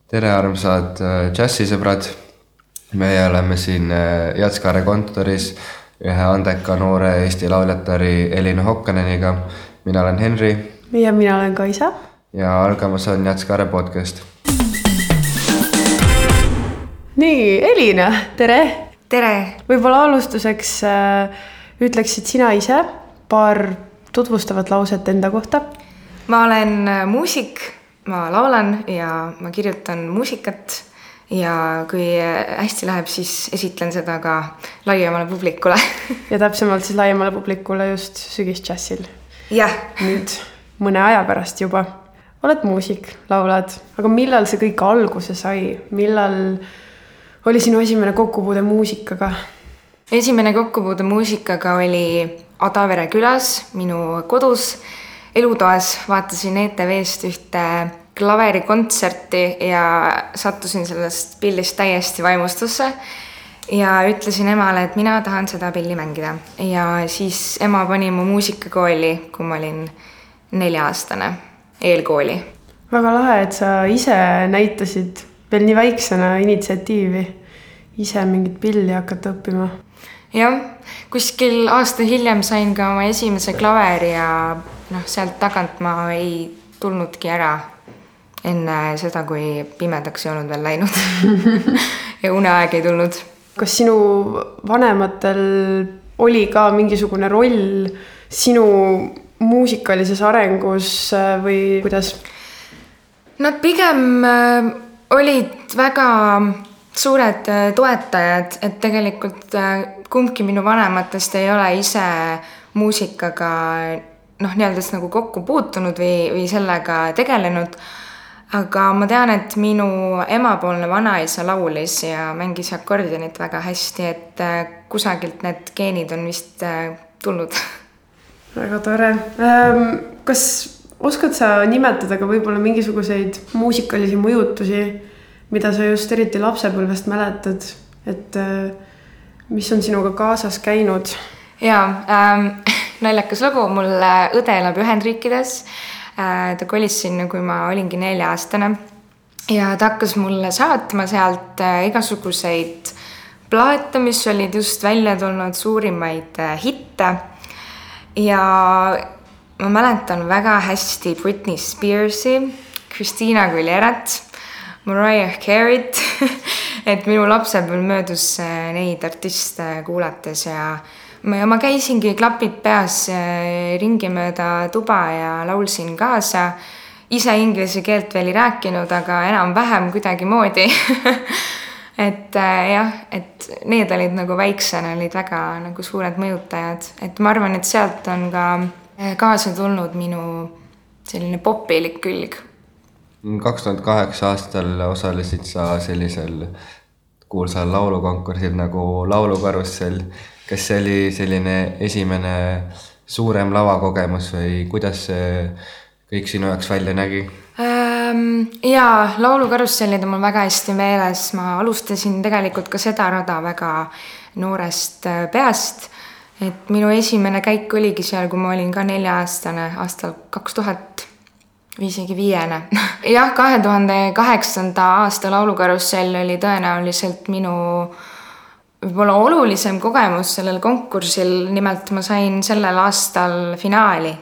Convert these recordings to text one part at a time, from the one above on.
Tere armsad džässisõbrad. Meie oleme siin Jatskare kontoris ühe andeka noore Eesti lauljatari Elina Hokkaneniga. Mina olen Henri. Ja mina olen Kaisa. Ja algamas on Jatskare podcast. Nii, Elina, tere! Tere! Võib-olla alustuseks ütleksid sina ise paar tutvustavat lauset enda kohta? Ma olen muusik, ma laulan ja ma kirjutan muusikat ja kui hästi läheb, siis esitlen seda ka laiemale publikule. Ja täpsemalt siis laiemale publikule just sügisdžässil. Jah. Nüüd mõne aja pärast juba. Oled muusik, laulad, aga millal see kõik alguse sai? Millal oli sinu esimene kokkupuude muusikaga? Esimene kokkupuude muusikaga oli Adavere külas, minu kodus, elutoas. Vaatasin ETV-st ühte klaverikontserti ja sattusin sellest pillist täiesti vaimustusse ja ütlesin emale, et mina tahan seda pilli mängida. Ja siis ema pani mu muusikakooli, kui ma olin 4-aastane, eelkooli. Väga lahe, et sa ise näitasid veel nii väiksena initsiatiivi ise mingit pilli hakata õppima. Jah, kuskil aasta hiljem sain ka oma esimese klaveri ja sealt tagant ma ei tulnudki ära enne seda, kui pimedaks ei olnud veel läinud ja uneaeg ei tulnud. Kas sinu vanematel oli ka mingisugune roll sinu muusikalises arengus või kuidas? Nad pigem olid väga suured toetajad, et tegelikult kumbki minu vanematest ei ole ise muusikaga nii-öelda nagu kokku puutunud või sellega tegelenud. Aga ma tean, et minu emapoolne vanaisa laulis ja mängis akordionit väga hästi, et kusagilt need geenid on vist tulnud. Väga tore. Kas oskad sa nimetada ka võib-olla mingisuguseid muusikalisi mõjutusi, mida sa just eriti lapsepõlvest mäletad, et mis on sinuga kaasas käinud? Jaa, naljakas lugu. Mul õde elab Ühendriikides. Ta kolis sinna, kui ma olingi 4-aastane. Ja ta hakkas mulle saatma sealt igasuguseid plaate, mis olid just välja tulnud suurimaid hitte. Ja ma mäletan väga hästi Britney Spearsi, Christina Aguilera't, Mariah Carey't, et minu lapsepõlv möödus neid artiste kuulates ja ma käisingi klapid peas ringi mööda tuba ja laulsin kaasa. Ise inglise keelt veel ei rääkinud, aga enam-vähem kuidagi moodi. Et jah, et need olid nagu väiksena, olid väga nagu suured mõjutajad. Et ma arvan, et sealt on ka kaasa tulnud minu selline popilik külg. 2008 aastal osalesid sa sellisel kuulsal laulukonkursil nagu Laulukarussell. Kas see oli selline esimene suurem lavakogemus või kuidas see kõik sinu jaoks välja nägi? Jaa, Laulukarussellid on mul väga hästi meeles. Ma alustasin tegelikult ka seda rada väga noorest peast. Et minu esimene käik oligi seal, kui ma olin ka 4-aastane aastal 2000 või isegi 5. Jah, 2008. aasta Laulukarussell oli tõenäoliselt minu võib-olla olulisem kogemus sellel konkursil. Nimelt ma sain sellel aastal finaali,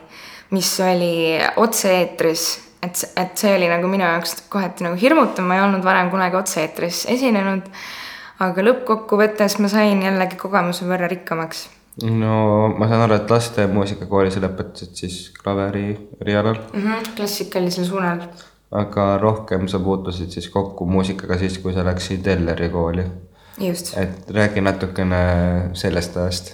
mis oli otse-eetris. Et see oli nagu minu jaoks kohati nagu hirmutav. Ma ei olnud varem kunagi otse-eetris esinenud, aga lõppkokkuvõttes ma sain jällegi kogemuse võrra rikkamaks. No ma saan aru, et laste muusikakoolis lõpetasid siis klaveri rialal. Klassikalisel suunal. Aga rohkem sa puutusid siis kokku muusikaga siis, kui sa läksid Elleri kooli. Just. Et räägi natukene sellest ajast.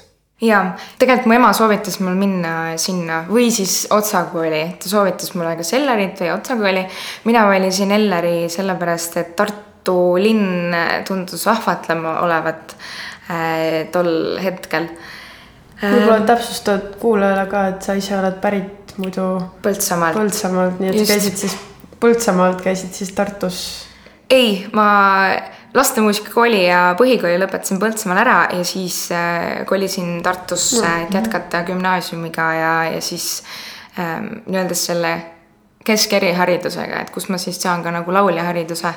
Jaa, tegelikult mu ema soovitas mul minna sinna või siis Otsakooli. Ta soovitas mulle kas Ellerit või Otsakooli. Mina valisin Elleri sellepärast, et Tartu linn tundus vahvatlema olevat tol hetkel. Võib-olla täpsustad kuulajale ka, et sa ise oled pärit muidu Põltsamaalt, nii et käisid siis Põltsamaalt, käisid siis Tartus? Ei, ma lastemuusikakooli ja põhikooli lõpetasin Põltsamaal ära ja siis kolisin Tartusse, et jätkata gümnaasiumiga ja siis nii-öelda selle keskeriharidusega, et kus ma siis saan ka nagu lauljahariduse.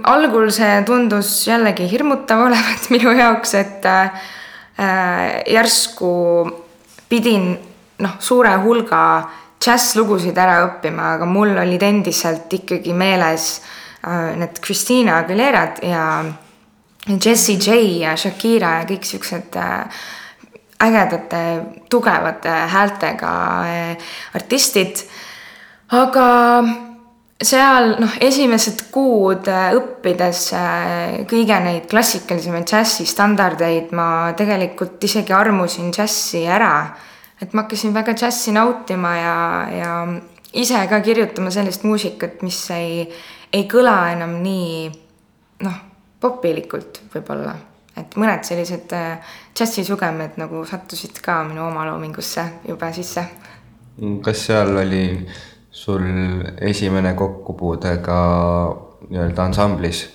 Algul see tundus jällegi hirmutav olevat minu jaoks, et järsku pidin suure hulga džässlugusid ära õppima, aga mul olid endiselt ikkagi meeles need Christina Aguilerad ja Jessie J ja Shakira ja kõik siuksed ägedate, tugevate häältega artistid. Aga seal esimesed kuud õppides kõige neid klassikalisemaid džässi standardeid ma tegelikult isegi armusin džässi ära. Et ma hakkasin väga džässi nautima ja ise ka kirjutama sellist muusikat, mis ei kõla enam nii popilikult võib-olla. Et mõned sellised džässi sugemed nagu sattusid ka minu oma loomingusse juba sisse. Kas seal oli sul esimene kokkupuude ka nii-öelda ansamblis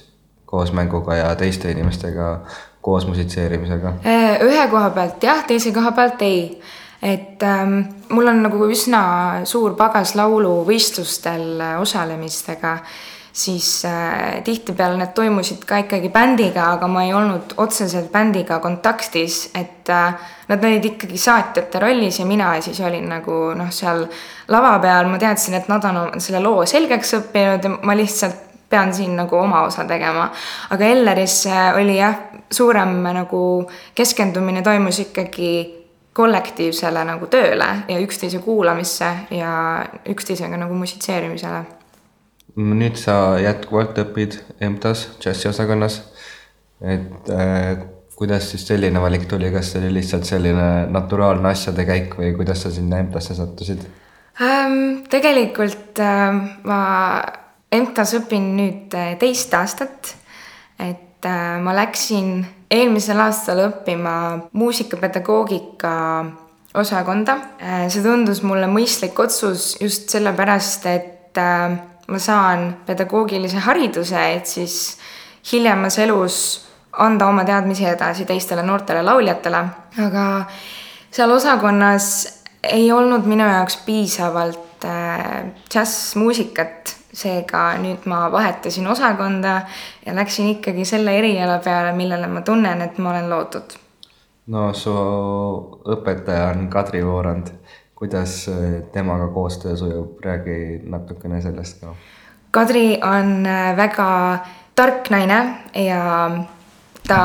koos mänguga ja teiste inimestega koos musitseerimisega? Ühe koha pealt jah, teise koha pealt ei. Et mul on nagu üsna suur pagas lauluvõistlustel osalemistega, siis tihtipeale need toimusid ka ikkagi bändiga, aga ma ei olnud otseselt bändiga kontaktis, et nad olid ikkagi saatjate rollis ja mina siis olin nagu seal lava peal, ma teadsin, et nad on selle loo selgeks õppinud ja ma lihtsalt pean siin nagu oma osa tegema. Aga Elleris oli jah, suurem nagu keskendumine toimus ikkagi kollektiivsele nagu tööle ja üksteise kuulamisse ja üksteisega nagu musitseerimisele. Nüüd sa jätkuvalt õpid EMTA-s, džässiosakonnas, et kuidas siis selline valik tuli, kas see oli lihtsalt selline naturaalne asjade käik või kuidas sa sinna EMTA-sse sattusid? Tegelikult ma EMTA-s õpin nüüd 2 aastat, et ma läksin eelmisel aastal õppima muusikapedagoogika osakonda. See tundus mulle mõistlik otsus just sellepärast, et ma saan pedagoogilise hariduse, et siis hiljemas elus anda oma teadmisi edasi teistele noortele lauljatele. Aga seal osakonnas ei olnud minu jaoks piisavalt džässmuusikat, seega nüüd ma vahetasin osakonda ja läksin ikkagi selle eriala peale, millele ma tunnen, et ma olen loodud. No su õpetaja on Kadri Voorand. Kuidas temaga koostöö sujub? Räägi natukene sellest ka. Kadri on väga tark naine ja ta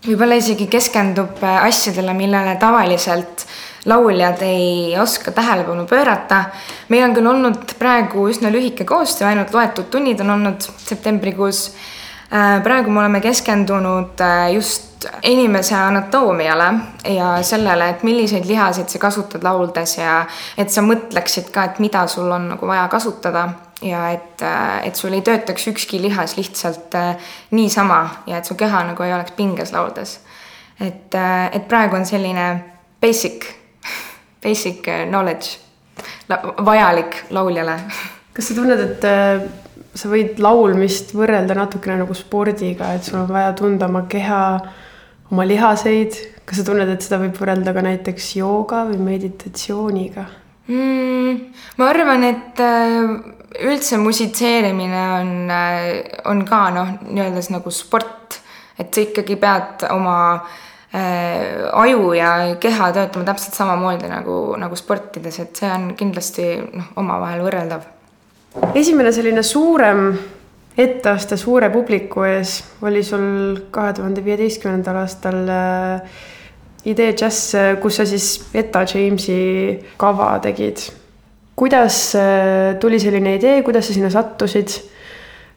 võib-olla isegi keskendub asjadele, millele tavaliselt lauljad ei oska tähelepanu pöörata. Meil on küll olnud praegu üsna lühike koostöö, ainult loetud tunnid on olnud septembrikuus. Praegu me oleme keskendunud just inimese anatoomiale ja sellele, et milliseid lihaseid sa kasutad lauldes ja et sa mõtleksid ka, et mida sul on nagu vaja kasutada ja et sul ei töötaks ükski lihas lihtsalt niisama ja et su keha nagu ei oleks pinges lauldes. Et praegu on selline basic knowledge vajalik lauljale. Kas sa tunned, et sa võid laulmist võrrelda natukene nagu spordiga, et sul on vaja tunda oma keha, oma lihaseid? Kas sa tunned, et seda võib võrrelda ka näiteks jooga või meditatsiooniga? Ma arvan, et üldse musitseerimine on ka nii-öelda nagu sport, et sa ikkagi pead oma aju ja keha töötama täpselt samamoodi nagu sportides, et see on kindlasti omavahel võrreldav. Esimene selline suurem etteaste suure publiku ees oli sul 2015. aastal Idee Jazz, kus sa siis Etta Jamesi kava tegid. Kuidas tuli selline idee, kuidas sa sinna sattusid?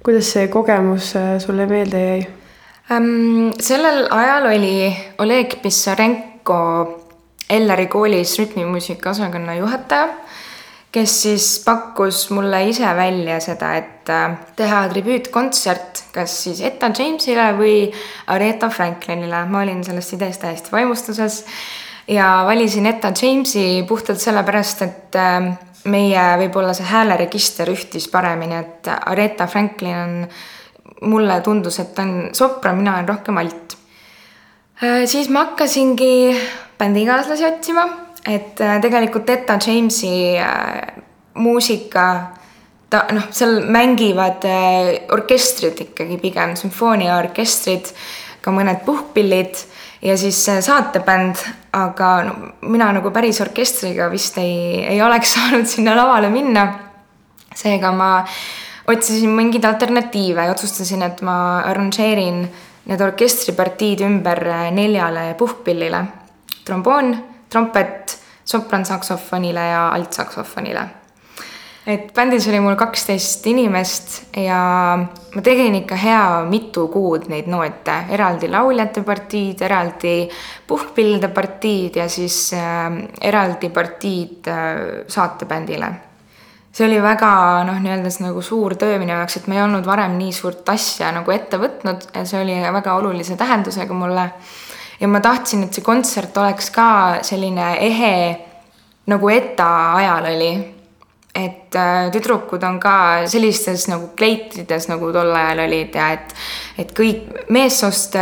Kuidas see kogemus sulle meelde jäi? Sellel ajal oli Oleg Pissarenko Elleri koolis rütmimuusika osakonna juhataja, kes siis pakkus mulle ise välja seda, et teha tribüütkontsert kas siis Etta Jamesile või Aretha Franklinile. Ma olin sellest ideest täiesti vaimustuses ja valisin Etta Jamesi puhtalt sellepärast, et meie võib-olla see hääleregister ühtis paremini, et Aretha Franklin on, mulle tundus, et ta on sopran, mina olen rohkem alt. Siis ma hakkasingi bändikaaslasi otsima, et tegelikult Etta Jamesi muusika, seal mängivad orkestrid ikkagi pigem, sümfooniaorkestrid, ka mõned puhkpillid ja siis saatebänd, aga mina nagu päris orkestriga vist ei oleks saanud sinna lavale minna. Seega ma otsisin mingeid alternatiive ja otsustasin, et ma arranžeerin need orkestripartiid ümber 4 puhkpillile. Tromboon, trompet, soprantsaksofonile ja altsaksofonile. Et bändis oli mul 12 inimest ja ma tegin ikka hea mitu kuud neid noote, eraldi lauljate partiid, eraldi puhkpillide partiid ja siis eraldi partiid saatebändile. See oli väga nii-öeldes nagu suur töö minu jaoks, et ma ei olnud varem nii suurt asja nagu ette võtnud ja see oli väga olulise tähendusega mulle. Ja ma tahtsin, et see kontsert oleks ka selline ehe nagu ETA ajal oli. Et tüdrukud on ka sellistes nagu kleitrides nagu tol ajal olid ja et kõik meessoost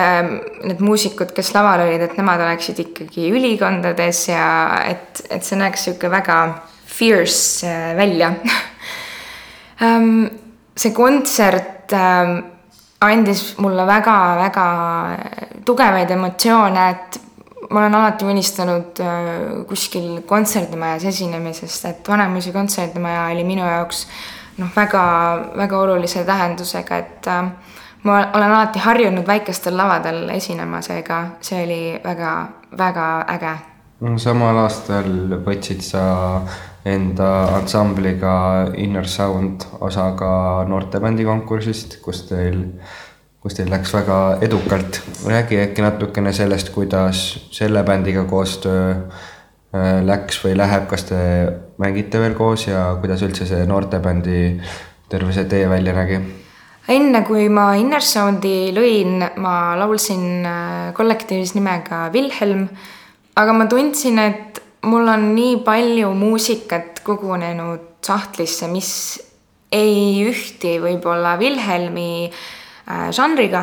need muusikud, kes laval olid, et nemad oleksid ikkagi ülikondades ja et see näeks siuke väga fierce välja. See kontsert andis mulle väga-väga tugevaid emotsioone, et ma olen alati unistanud kuskil kontserdimajas esinemisest, et Vanemuise kontserdimaja oli minu jaoks väga olulise tähendusega, et ma olen alati harjunud väikestel lavadel esinema, seega see oli väga äge. Samal aastal võtsid sa enda ansambliga Inner Sound osaga noortebändi konkursist, kus teil läks väga edukalt. Räägi äkki natukene sellest, kuidas selle bändiga koostöö läks või läheb, kas te mängite veel koos ja kuidas üldse see noortebändi terve see tee välja nägi? Enne kui ma Inner Soundi lõin, ma laulsin kollektiivis nimega Wilhelm, aga ma tundsin, et mul on nii palju muusikat kogunenud sahtlisse, mis ei ühti võib-olla Wilhelmi žanriga.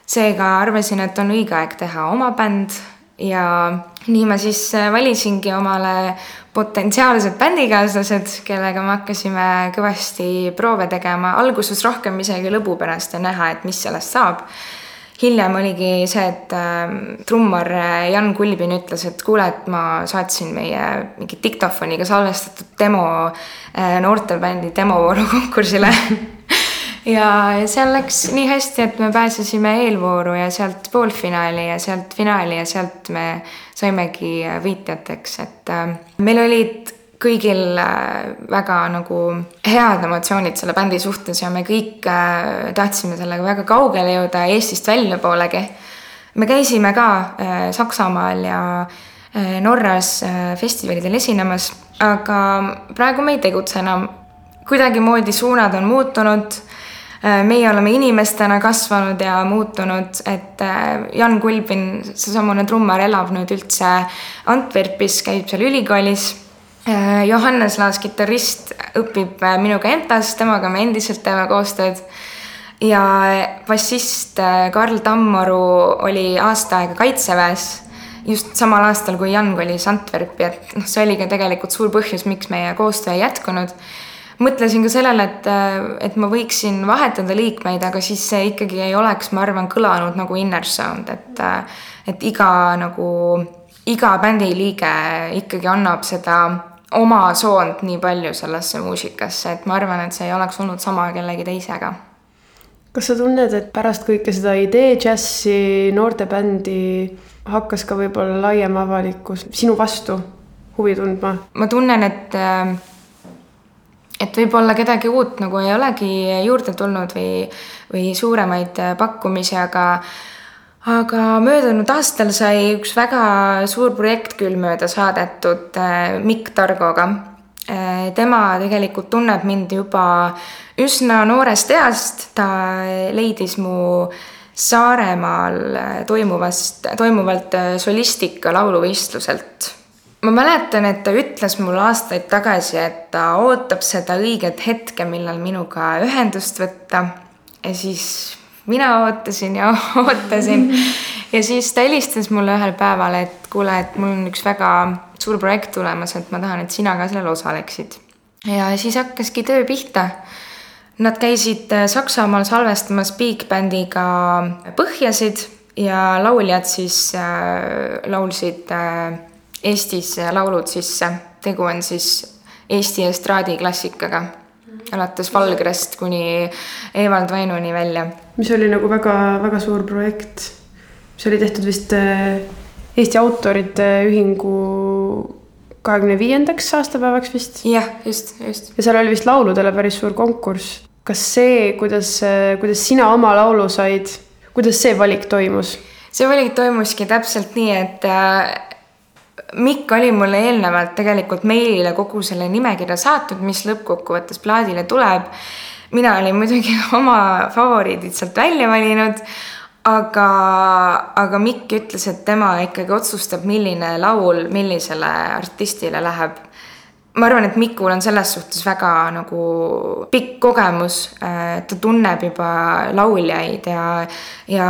Seega arvasin, et on õige aeg teha oma bänd ja nii ma siis valisingi omale potentsiaalsed bändikaaslased, kellega me hakkasime kõvasti proove tegema. Alguses rohkem isegi lõbu pärast ja näha, et mis sellest saab. Hiljem oligi see, et trummar Jan Kulbin ütles, et kuule, et ma saatsin meie mingi diktofoniga salvestatud demo noortebändi demovooru konkursile. Ja seal läks nii hästi, et me pääsesime eelvooru ja sealt poolfinaali ja sealt finaali ja sealt me saimegi võitjateks, et meil olid kõigil väga nagu head emotsioonid selle bändi suhtes ja me kõik tahtsime sellega väga kaugele jõuda Eestist välja poolegi. Me käisime ka Saksamaal ja Norras festivalidel esinemas, aga praegu me ei tegutse enam. Kuidagi moodi suunad on muutunud. Meie oleme inimestena kasvanud ja muutunud, et Jan Kulbin, seesamune trummar, elab nüüd üldse Antwerpis, käib seal ülikoolis. Johannes Laas, kitarrist, õpib minuga EMTA-s, temaga me endiselt teeme koostööd. Ja bassist Karl Tammoru oli aasta aega Kaitseväes, just samal aastal, kui Jan kolis Antwerpi, et see oli ka tegelikult suur põhjus, miks meie koostöö ei jätkunud. Mõtlesin ka sellele, et ma võiksin vahetada liikmeid, aga siis see ikkagi ei oleks, ma arvan, kõlanud nagu Inner Sound, et iga bändi liige ikkagi annab seda oma soont nii palju sellesse muusikasse, et ma arvan, et see ei oleks olnud sama kellegi teisega. Kas sa tunned, et pärast kõike seda idee džässi noortebändi hakkas ka võib-olla laiem avalikkus sinu vastu huvi tundma? Ma tunnen, et võib-olla kedagi uut nagu ei olegi juurde tulnud või suuremaid pakkumisi, aga möödunud aastal sai üks väga suur projekt küll mööda saadetud Mikk Targoga. Tema tegelikult tunneb mind juba üsna noorest east. Ta leidis mu Saaremaal toimuvalt solistika lauluvõistluselt. Ma mäletan, et ta ütles mulle aastaid tagasi, et ta ootab seda õiget hetke, millal minuga ühendust võtta. Ja siis mina ootasin ja ootasin. Ja siis ta helistas mulle ühel päeval, et kuule, et mul on üks väga suur projekt tulemas, et ma tahan, et sina ka sellel osaleksid. ja siis hakkaski töö pihta. Nad käisid Saksamaal salvestamas Big Bandiga põhjasid ja lauljad siis laulsid Eestis laulud sisse. Tegu on siis Eesti estraadiklassikaga. Alates Valgrest kuni Evald Vainuni välja. Mis oli nagu väga, väga suur projekt. See oli tehtud vist Eesti autorite ühingu 25. aastapäevaks vist. Jah, just. Ja seal oli vist lauludele päris suur konkurss. Kas see, kuidas sina oma laulu said, kuidas see valik toimus? See valik toimuski täpselt nii, et Mikk oli mulle eelnevalt tegelikult meilile kogu selle nimekirja saatnud, mis lõppkokkuvõttes plaadile tuleb. Mina olin muidugi oma favoriidid sealt välja valinud, aga Mikk ütles, et tema ikkagi otsustab, milline laul millisele artistile läheb. Ma arvan, et Mikul on selles suhtes väga nagu pikk kogemus. Ta tunneb juba lauljaid ja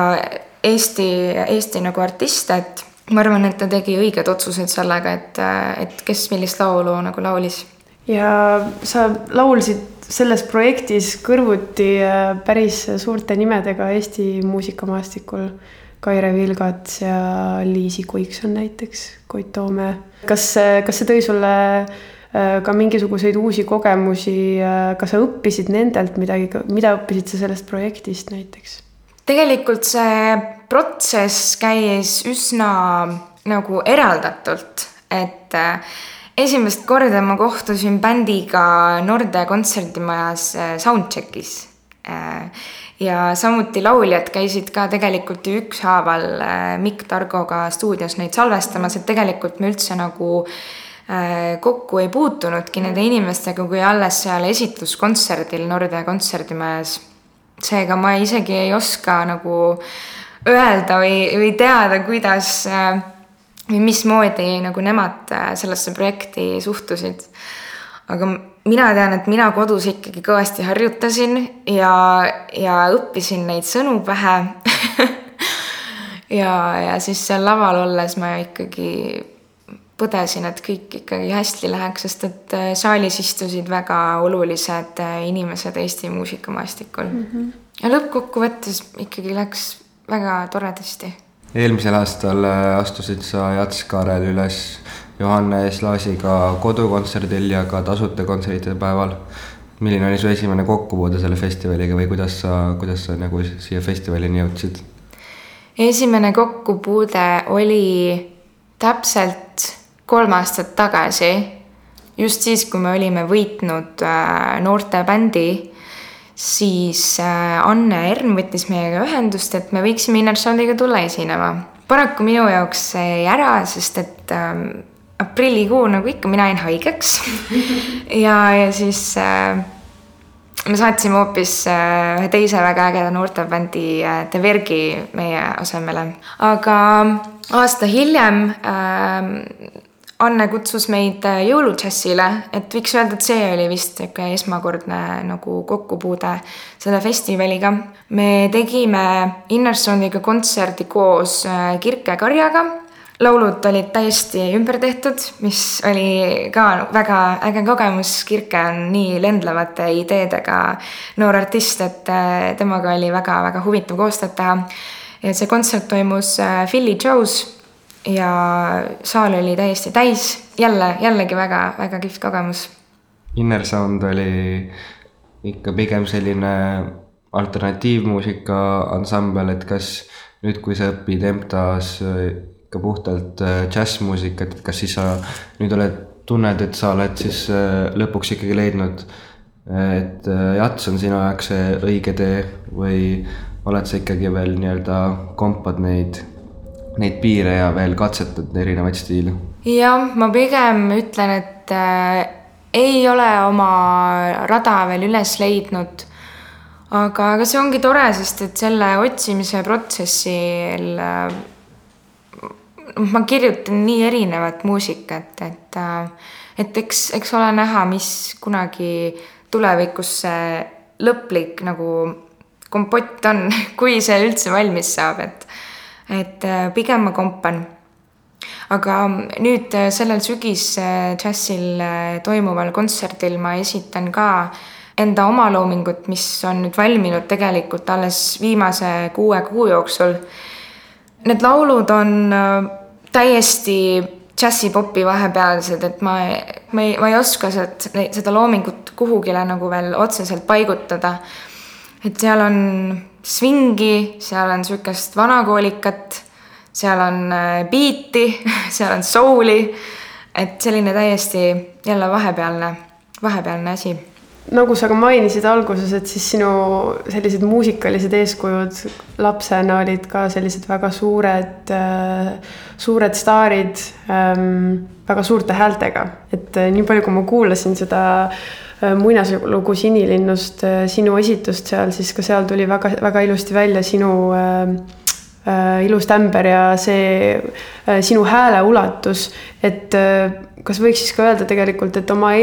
Eesti nagu artiste, et ma arvan, et ta tegi õiged otsused sellega, et kes millist laulu nagu laulis. Ja sa laulsid selles projektis kõrvuti päris suurte nimedega Eesti muusikamaastikul. Kaire Vilgats ja Liisi Kuikson näiteks, Koit Toome. Kas see tõi sulle ka mingisuguseid uusi kogemusi? Kas sa õppisid nendelt midagi, mida õppisid sa sellest projektist näiteks? Tegelikult see protsess käis üsna nagu eraldatult, et esimest korda ma kohtusin bändiga Norde kontserdimajas soundcheckis ja samuti lauljad käisid ka tegelikult ükshaaval Mikk Targoga stuudios neid salvestamas, et tegelikult me üldse nagu kokku ei puutunudki nende inimestega, kui alles seal esitluskontserdil Norde kontserdimajas. Seega ma isegi ei oska nagu öelda või teada, kuidas või mismoodi nagu nemad sellesse projekti suhtusid. Aga mina tean, et mina kodus ikkagi kõvasti harjutasin ja õppisin neid sõnu pähe. ja siis seal laval olles ma ikkagi põdesin, et kõik ikkagi hästi läheks, sest et saalis istusid väga olulised inimesed Eesti muusikamaastikul. Ja lõppkokkuvõttes ikkagi läks väga toredasti. Eelmisel aastal astusid sa Jats Kaarel üles Johannes Laasiga kodukontserdil ja ka tasuta kontsertide päeval. Milline oli su esimene kokkupuude selle festivaliga või kuidas sa nagu siia festivalini jõudsid? Esimene kokkupuude oli täpselt 3 aastat tagasi, just siis, kui me olime võitnud noorte bändi, siis Anne Ern võttis meiega ühendust, et me võiksime Innersoundiga tulla esinema. Paraku minu jaoks jäi ära, sest et aprillikuu nagu ikka mina jäin haigeks ja siis me saatsime hoopis ühe teise väga ägeda noortebändi The Vergi meie asemele. Aga aasta hiljem Anne kutsus meid jõuludžässile, et võiks öelda, et see oli vist esmakordne nagu kokkupuude selle festivaliga. Me tegime Innersoundiga kontserdi koos Kirke Karjaga. Laulud olid täiesti ümber tehtud, mis oli ka väga äge kogemus. Kirke on nii lendlevate ideedega noor artist, et temaga oli väga-väga huvitav koostööd teha. Ja see kontsert toimus Philly Joe's ja saal oli täiesti täis. Jällegi väga kihvt kogemus. Innersound oli ikka pigem selline alternatiivmuusika ansambel, et kas nüüd, kui sa õpid EMTA-s ikka puhtalt džässmuusikat, et kas siis sa nüüd tunned, et sa oled siis lõpuks ikkagi leidnud, et Jats on sinu jaoks see õige tee või oled sa ikkagi veel nii-öelda kompad neid piire ja veel katsetad erinevaid stiile? Jah, ma pigem ütlen, et ei ole oma rada veel üles leidnud, aga see ongi tore, sest et selle otsimise protsessil ma kirjutan nii erinevat muusikat, et eks ole näha, mis kunagi tulevikus see lõplik nagu kompott on, kui see üldse valmis saab, et pigem ma kompan. aga nüüd sellel sügisdžässil toimuval kontserdil ma esitan ka enda omaloomingut, mis on nüüd valminud tegelikult alles viimase 6 kuu jooksul. Need laulud on täiesti džässipopi vahepealsed, et ma ei oska seda loomingut kuhugile nagu veel otseselt paigutada. Et seal on swingi, seal on sükest vanakoolikat, seal on beati, seal on souli, et selline täiesti jälle vahepealne asi. Nagu sa ka mainisid alguses, et siis sinu sellised muusikalised eeskujud lapsena olid ka sellised väga suured staarid, väga suurte häältega. Et nii palju, kui ma kuulasin seda muinaslugu Sinilinnust, sinu esitust seal, siis ka seal tuli väga, väga ilusti välja sinu ilus tämber ja see sinu hääle ulatus. Et kas võiks siis ka öelda tegelikult, et oma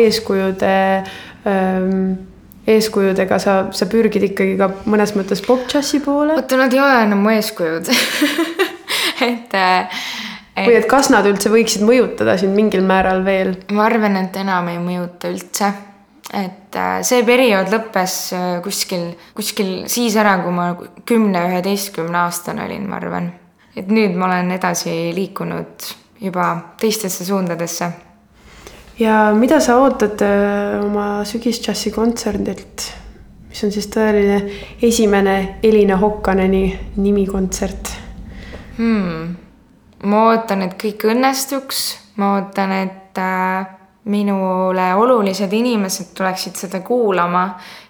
eeskujudega sa pürgid ikkagi ka mõnes mõttes pop-džassi poole? Oota, nad ei ole enam mu eeskujud. Või et kas nad üldse võiksid mõjutada sind mingil määral veel? Ma arvan, et enam ei mõjuta üldse. Et see periood lõppes kuskil siis ära, kui ma 10-11 aastane olin, ma arvan. Et nüüd ma olen edasi liikunud juba teistesse suundadesse. Ja mida sa ootad oma sügisdžassi kontserdilt, mis on siis tõeline esimene Elina Hokkaneni nimikontsert? Ma ootan, et kõik õnnestuks. Ma ootan, et minule olulised inimesed tuleksid seda kuulama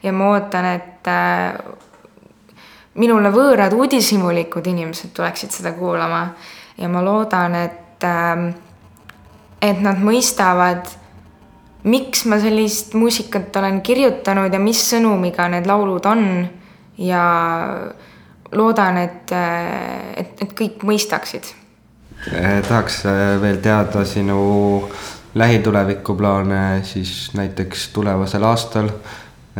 ja ma ootan, et minule võõrad uudishimulikud inimesed tuleksid seda kuulama ja ma loodan, et nad mõistavad, miks ma sellist muusikat olen kirjutanud ja mis sõnumiga need laulud on ja loodan, et kõik mõistaksid. Tahaks veel teada sinu lähitulevikkuplaane siis näiteks tulevasel aastal,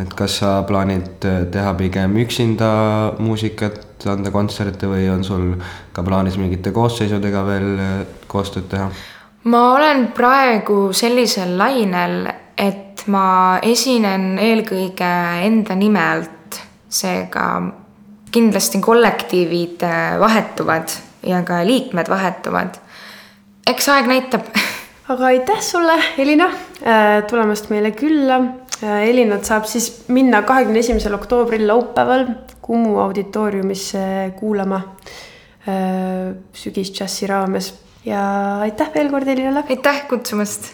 et kas sa plaanid teha pigem üksinda muusikat, anda kontserte või on sul ka plaanis mingite koosseisudega veel koostööd teha? Ma olen praegu sellisel lainel, et ma esinen eelkõige enda nimelt, seega kindlasti kollektiivid vahetuvad ja ka liikmed vahetuvad. Eks aeg näitab. Aga aitäh sulle, Elina, tulemast meile külla. Elinat saab siis minna 21. oktoobril laupäeval Kumu auditooriumisse kuulama sügisdžassi raames. Ja aitäh veel kord, Elinale. Aitäh kutsumast.